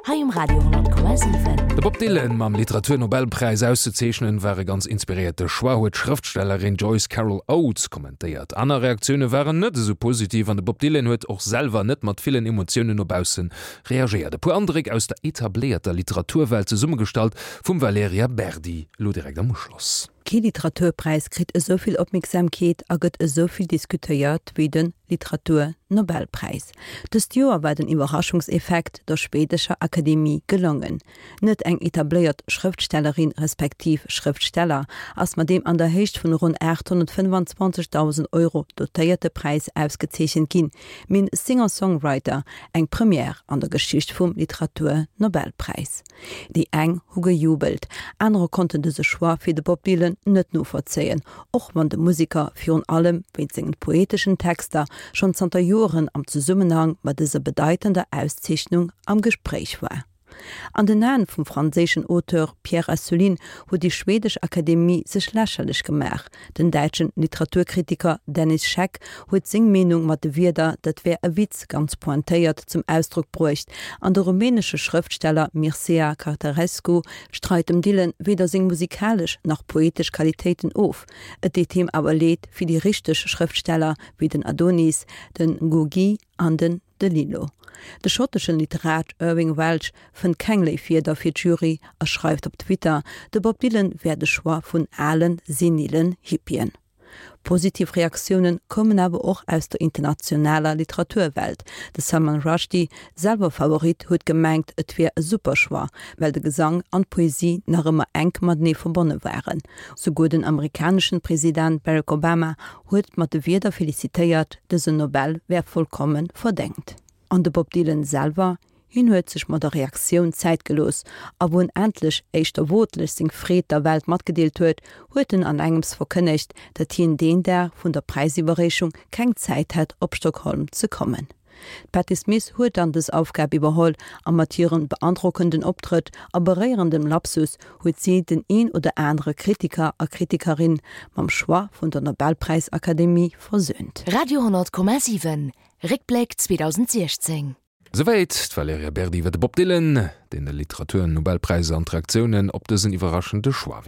hei um Radio 10,7. De Bob Dylan mam Literaturnobelpräis auszezeechnen, war e ganz inspiréierte Choix, huet d'Schrëftstellerin Joyce Carol Oates kommentéiert. Aner Reaktioune waren net esou positiv an de Bob Dylan huet och selwer net mat villen Emotiounen no bausse reagéiert. E puer Andréck aus der etabléierter Literaturwelt, zesummegestallt vum Valerija Berdi, elo direkt am Uschloss. Kee Literaturpräis kritt esou vill Opmierksamkeet a gëtt esou vill diskutéiert wéi de Literatur-Nobelpräis. Dëst Joer war den Iwwerraschungseffekt der schwedescher Akademie gelongen. Net eng etabléiert Schrëftstellerin respektiv Schrëftsteller ass mat deem an der Héicht vun ronn 825.000 Euro dotéierte Präis ausgezeechent ginn, mee en Singer-Songwriter, eng Première an der Geschicht vum Literatur-Nobelpräis. Déi eng hu gejubelt, anerer konnten dëse Choix fir de Bob Dylan net novollzéien, och wann de Museker virun allem wéinst sengen poeteschen Texter schonn zanter Joeren am Zesummenhang mat dëser bedeitender Auszeechnung am Gespréich war. An den Aen vum franséischen Auteur Pierre Assouline huet déi schwedesch Akademie sech lächerlech gemaach. Den däitschen Literaturkritiker Dennis Scheck huet seng Meenung mat de Wierder dat wär e Witz ganz pointéiert zum Ausdrock bruecht an de rumänesche Schrëftsteller Mircea Cartarescu streit dem Dylan weder seng musikalesch nach poetesch Qualitéiten of. Et deet him awer leed fir déi richteg Schrëftsteller wéi den Adonis, den Ngugi an den DeLillo. De schotteschen Literat Irving Welsh fënnt keng léif Wierder fir d'Jury a schreift op Twitter, de Bob Dylan wär de Choix vun alen, senilen Hippien. Positiv Reaktioune koumen awer och aus der internationaler Literaturwelt. De Salman Rushdie, selwer Favorit, huet gemengt, et wier e super Choix, well de Gesang an d'Poesie nach ëmmer enk matenee verbonne waren. Souguer den amerikaneschen President Barack Obama huet mat de Wierder felicitéiert, dësen Nobel wär vollkomme verdéngt. An de Bob Dylan selwer? Hien huet sech mat der Reaktioun Zäit gelooss, a wou en endlech éischter wotlech seng Freed der Welt matgedeelt huet, huet en an engems verkënnegt, datt hien deen Dag vun der Präisiwwerreechung keng Zäit hätt op Stockholm ze kommen. D'Patti Smith huet dann dës Aufgab iwwerholl a mat hirem beandrockenden Optrëtt a beréierendem Lapsus huet si den een oder anere Kritiker a Kritikerin mam Choix vun der Nobelpräisakademie versöhnt. Radio 10,7 Réckbléck 2016. Souwäit d'Valerija Berdi iwwer de Bob Dylan, deen de Literaturnobelpräis an d'Reaktiounen op dësen iwwerraschende Choix.